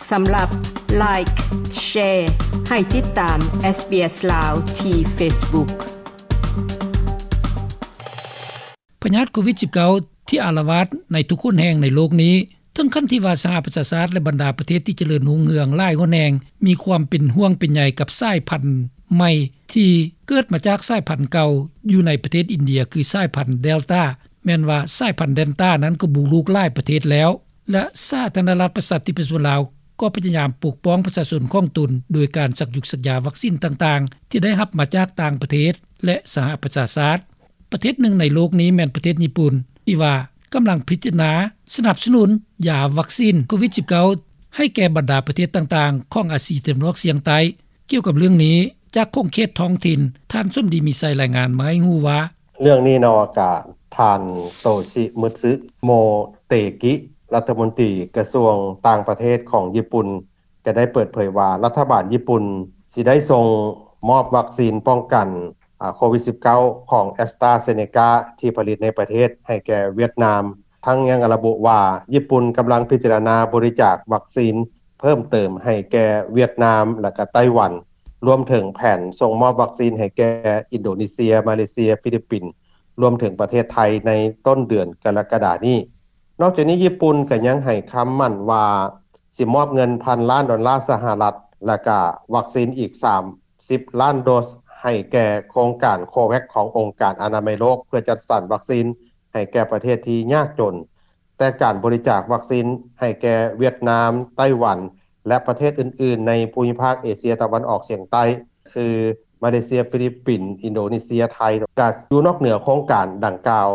ສຳລັບ Like, Share ໃຫ້ຕິດຕາມ SBS ລາວ ທີ່ Facebook. ພະຍາດໂຄວິດ-ສິບເກົ້າ ທີ່ອາລະວາດໃນທຸກຫົນແຫ່ງໃນໂລກນີ້ ເຖິງຂັ້ນທີ່ວ່າສະຫະປະຊາຊາດ ແລະ ບັນດາປະເທດທີ່ຈະເລີນຮຸ່ງເຮືອງຫຼາຍຫົນແຫ່ງ ມີຄວາມເປັນຫ່ວງເປັນໃຍກັບສາຍພັນໃໝ່ ທີ່ເກີດມາຈາກສາຍພັນເກົ່າຢູ່ໃນປະເທດອິນເດຍ ຄືສາຍພັນເດລຕາ. ແມ່ນວ່າສາຍພັນເດລຕານັ້ນກໍບຸກລຸກຫຼາຍປະເທດແລ້ວ ແລະ ສາທາລະນະລັດປະຊາທິປະໄຕປະຊາຊົນລາວ ກໍພະຍາຍາມປົກປ້ອງປະຊາຊົນຂອງຕົນ ໂດຍການສັກຢູກສັກຢາວັກຊີນຕ່າງໆ ທີ່ໄດ້ຮັບມາຈາກຕ່າງປະເທດ ແລະ ສະຫະປະຊາຊາດ. ປະເທດໜຶ່ງໃນໂລກນີ້ແມ່ນປະເທດຍີ່ປຸ່ນ ທີ່ວ່າກຳລັງພິຈາລະນາສະໜັບສະໜູນຢາວັກຊີນໂຄວິດ-ສິບເກົ້າ ໃຫ້ແກ່ບັນດາປະເທດຕ່າງໆ ຂອງອາຊີຕາເວັນອອກສຽງໃຕ້. ກ່ຽວກັບເລື່ອງນີ້ ຈາກຂົງເຂດທ້ອງຖິ່ນ ທ່ານສົມດີ ມີໄຊ ລາຍງານມາໃຫ້ຮູ້ວ່າ: ເລື່ອງນີ້ເນາະ ກະທ່ານ ໂຕຊິ ມຶດຊຶ ໂມເຕກິ ລັດຖະມົນຕີກະຊວງຕ່າງປະເທດຂອງຍີ່ປຸ່ນ ກໍໄດ້ເປີດເຜີຍວ່າ ລັດຖະບານຍີ່ປຸ່ນຊິໄດ້ສົ່ງມອບວັກຊີນປ້ອງກັນ ອາ ໂຄວິດ-ສິບເກົ້າ ຂອງ AstraZeneca ທີ່ຜະລິດໃນປະເທດໃຫ້ແກ່ຫວຽດນາມ. ທັງຍັງລະບຸວ່າ ຍີ່ປຸ່ນກຳລັງພິຈາລະນາບໍລິຈາກວັກຊີນເພີ່ມເຕີມໃຫ້ແກ່ຫວຽດນາມ ແລະ ກະໄຕ້ຫວັນ, ລວມເຖິງແຜນສົ່ງມອບວັກຊີນໃຫ້ແກ່ອິນໂດເນເຊຍ, ມາເລເຊຍ, ຟີລິບປິນ ລວມເຖິງປະເທດໄທໃນຕົ້ນເດືອນກໍລະກະດານີ້. ນອກຈາກນີ້ ຍີ່ປຸ່ນກໍຍັງໃຫ້ຄຳໝັ້ນວ່າ ຊິມອບເງິນພັນລ້ານດອນລາສະຫະລັດ ແລະ ກະວັກຊີນອີກສາມສິບລ້ານໂດສ ໃຫ້ແກ່ໂຄງການ COVAX ຂອງອົງການອະນາໄມໂລກ ເພື່ອຈັດສັນວັກຊີນໃຫ້ແກ່ປະເທດທີ່ຍາກຈົນ. ແຕ່ການບໍລິຈາກວັກຊີນໃຫ້ແກ່ຫວຽດນາມ, ໄຕ້ຫວັນ ແລະ ປະເທດອື່ນໆໃນພູມິພາກເອເຊຍຕາເວັນອອກສຽງໃຕ້ ຄື ມາເລເຊຍ, ຟີລິບປິນ, ອິນໂດເນເຊຍ, ໄທ ກໍຢູ່ນອກເໜືອໂຄງການດັ່ງກ່າວ.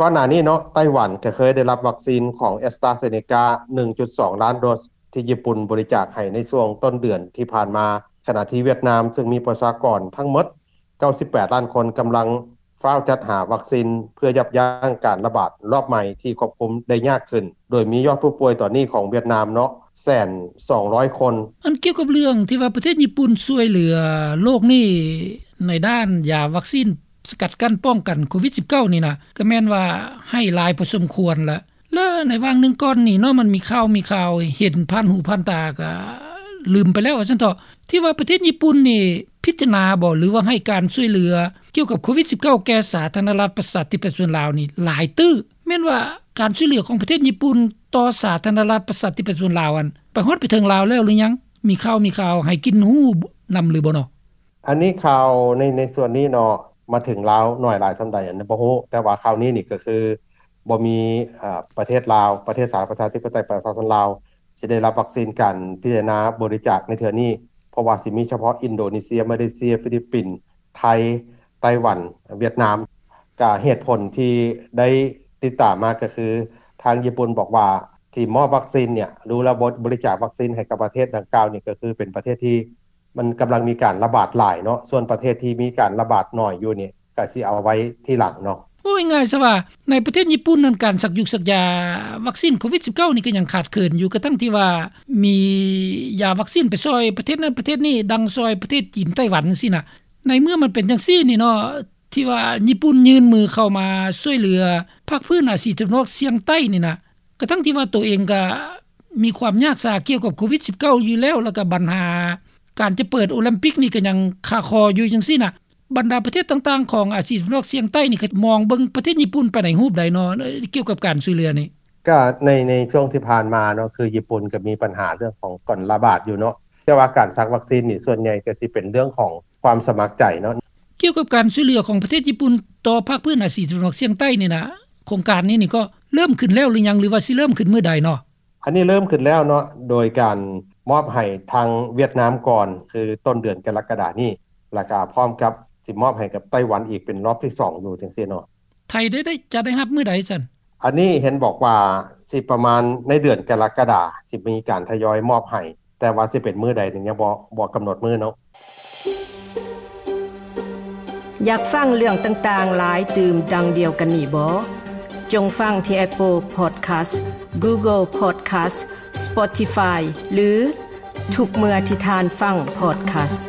ກ່ອນໜ້ານີ້ເນາະ ໄຕ້ຫວັນກໍເຄີຍໄດ້ຮັບວັກຊີນຂອງ AstraZeneca ໜຶ່ງຈຸດສອງລ້ານໂດສ ທີ່ຍີ່ປຸ່ນບໍລິຈາກໃຫ້ໃນຊ່ວງຕົ້ນເດືອນທີ່ຜ່ານມາ, ຂະນະທີ່ຫວຽດນາມ ເຊິ່ງມີປະຊາກອນທັງໝົດເກົ້າສິບແປດລ້ານຄົນ ກຳລັງຟ້າວຈັດຫາວັກຊີນ ເພື່ອຢັບຢັ້ງການລະບາດລອບໃໝ່ທີ່ຄວບຄຸມໄດ້ຍາກຂຶ້ນ, ໂດຍມີຍອດຜູ້ປ່ວຍຕອນນີ້ຂອງຫວຽດນາມເນາະ ແສນສອງຮ້ອຍຄົນ. ອັນກ່ຽວກັບເລື່ອງທີ່ວ່າປະເທດຍີ່ປຸ່ນຊ່ວຍເຫຼືອໂລກນີ້ ໃນດ້ານຢາວັກຊີນສະກັດກັ້ນປ້ອງກັນໂຄວິດ-ສິບເກົ້າ ນີ້ນະ ກໍແມ່ນວ່າໃຫ້ຫຼາຍພໍສົມຄວນລະ. ແລະ ໃນຫວ່າງໜຶ່ງກ່ອນນີ້ເນາະ ມັນມີຂ່າວ ມີຂ່າວເຫັນຜ່ານຫູຜ່ານຕາ ກໍລືມໄປແລ້ວວ່າຊັ້ນເຖາະ ທີ່ວ່າປະເທດຍີ່ປຸ່ນນີ້ພິຈາລະນາບໍ ຫຼືວ່າໃຫ້ການຊ່ວຍເຫຼືອກ່ຽວກັບໂຄວິດ-ສິບເກົ້າ ແກ່ສາທາລະນະລັດປະຊາທິປະໄຕປະຊາຊົນລາວນີ້ຫຼາຍຕື້. ແມ່ນວ່າການຊ່ວຍເຫຼືອຂອງປະເທດຍີ່ປຸ່ນຕໍ່ສາທາລະນະລັດປະຊາທິປະໄຕປະຊາຊົນລາວ ອັນໄປຮອດໄປເຖິງລາວແລ້ວຫຼືຍັງ? ມີຂ່າວ ມີຂ່າວໃຫ້ກິນຮູ້ນຳຫຼືບໍ່ເນາະ? ອັນນີ້ຂ່າວໃນ ໃນສ່ວນນີ້ເນາະ ມາເຖິງລາວໜ້ອຍຫຼາຍສ່ຳໃດ ອັນນີ້ບໍ່ຮູ້, ແຕ່ວ່າຂ່າວນີ້ນີ້ກໍຄືບໍ່ມີ ເອີ ປະເທດລາວ ປະເທດສາທາລະນະລັດປະຊາທິປະໄຕປະຊາຊົນລາວ ຊິໄດ້ຮັບວັກຊີນການພິຈາລະນາບໍລິຈາກໃນເທື່ອນີ້, ເພາະວ່າຊິມີສະເພາະອິນໂດເນເຊຍ, ມາເລເຊຍ, ຟີລິບປິນ, ໄທ, ໄຕ້ຫວັນ, ຫວຽດນາມ. ກະເຫດຜົນທີ່ໄດ້ຕິດຕາມມາກໍຄື ທາງຍີ່ປຸ່ນບອກວ່າ ທີ່ມອບວັກຊີນເນຍ ຫຼືວ່າບໍ ບໍລິຈາກວັກຊີນໃຫ້ກັບປະເທດດັ່ງກ່າວນີ້ ກໍຄືເປັນປະເທດທີ່ ມັນກຳລັງມີການລະບາດຫຼາຍເນາະ, ສ່ວນປະເທດທີ່ມີການລະບາດໜ້ອຍຢູ່ນີ້ ກໍຊິເອົາໄວ້ທີຫຼັງເນາະ. ເວົ້າງ່າຍໆຊະວ່າ ໃນປະເທດຍີ່ປຸ່ນນັ້ນ ການສັກຢູກສັກຢາວັກຊີນໂຄວິດ-ສິບເກົ້າ ນີ້ກໍຍັງຂາດເຂີນຢູ່, ກະທັ່ງທີ່ວ່າມີຢາວັກຊີນໄປຊ່ອຍປະເທດນັ້ນປະເທດນີ້, ດັ່ງຊ່ອຍປະເທດຈີນ, ໄຕ້ຫວັນ ຈັ່ງຊີ້ນະ. ໃນເມື່ອມັນເປັນຈັ່ງຊີ້ນີ້ເນາະ ທີ່ວ່າຍີ່ປຸ່ນຍື່ນມືເຂົ້າມາຊ່ວຍເຫຼືອພາກພື້ນອາຊີຕາເວັນອອກສຽງໃຕ້ນີ້ນະ, ກະທັ່ງທີ່ວ່າໂຕເອງກະມີຄວາມຍາກສາກ່ຽວກັບໂຄວິດ-ສິບເກົ້າ ຢູ່ແລ້ວ, ແລ້ວກະບັນຫາການຈະເປີດໂອລິມປິກນີ້ກະຍັງຄາຄໍຢູ່ຈັ່ງຊີ້ນະ. ບັນດາປະເທດຕ່າງໆຂອງອາຊີຕາເວັນອອກສຽງໃຕ້ນີ້ ກະມອງເບິ່ງປະເທດຍີ່ປຸ່ນໄປໃນຮູບໃດເນາະ ກ່ຽວກັບການຊ່ວຍເຫຼືອນີ້? ກະໃນ ໃນຊ່ວງທີ່ຜ່ານມາເນາະ ຄືຍີ່ປຸ່ນກະມີບັນຫາເລື່ອງຂອງການລະບາດຢູ່ເນາະ, ແຕ່ວ່າການສັກວັກຊີນນີ້ ສ່ວນໃຫຍ່ກະຊິເປັນເລື່ອງຂອງຄວາມສະໝັກໃຈເນາະ. ກ່ຽວກັບການຊ່ວຍເຫຼືອຂອງປະເທດຍີ່ປຸ່ນຕໍ່ພາກພື້ນອາຊີຕາເວັນອອກສຽງໃຕ້ນີ້ນະ, ໂຄງການນີ້ນີ້ກໍເລີ່ມຂຶ້ນແລ້ວຫຼືຍັງ ຫຼືວ່າຊິເລີ່ມຂຶ້ນມື້ໃດເນາະ? ອັນນີ້ເລີ່ມຂຶ້ນແລ້ວເນາະ ໂດຍການມອບໃຫ້ທາງຫວຽດນາມກ່ອນ ຄືຕົ້ນເດືອນກໍລະກະດານີ້, ແລ້ວກະພ້ອມກັບຊິມອບໃຫ້ກັບໄຕ້ຫວັນອີກເປັນລອບທີສອງຢູ່ຈັ່ງຊີ້ເນາະ. ໄທໄດ້ ໄດ້ ຈະໄດ້ຮັບມື້ໃດຊັ້ນ? ອັນນີ້ເຫັນບອກວ່າຊິປະມານໃນເດືອນກໍລະກະດາ ຊິມີການທະຍອຍມອບໃຫ້. ແຕ່ວ່າຊິເປັນມື້ໃດນີ້ຍັງບໍ່ ບໍ່ກຳນົດມື້ເນາະ. ຢາກຟັງເລື່ອງຕ່າງໆຫຼາຍຕື່ມດັ່ງດຽວກັນນີ້ບໍ? ຈົ່ງຟັງທີ່ Apple Podcast, Google Podcast, Spotify ຫຼື ທຸກເມື່ອທີ່ທ່ານຟັງ Podcast.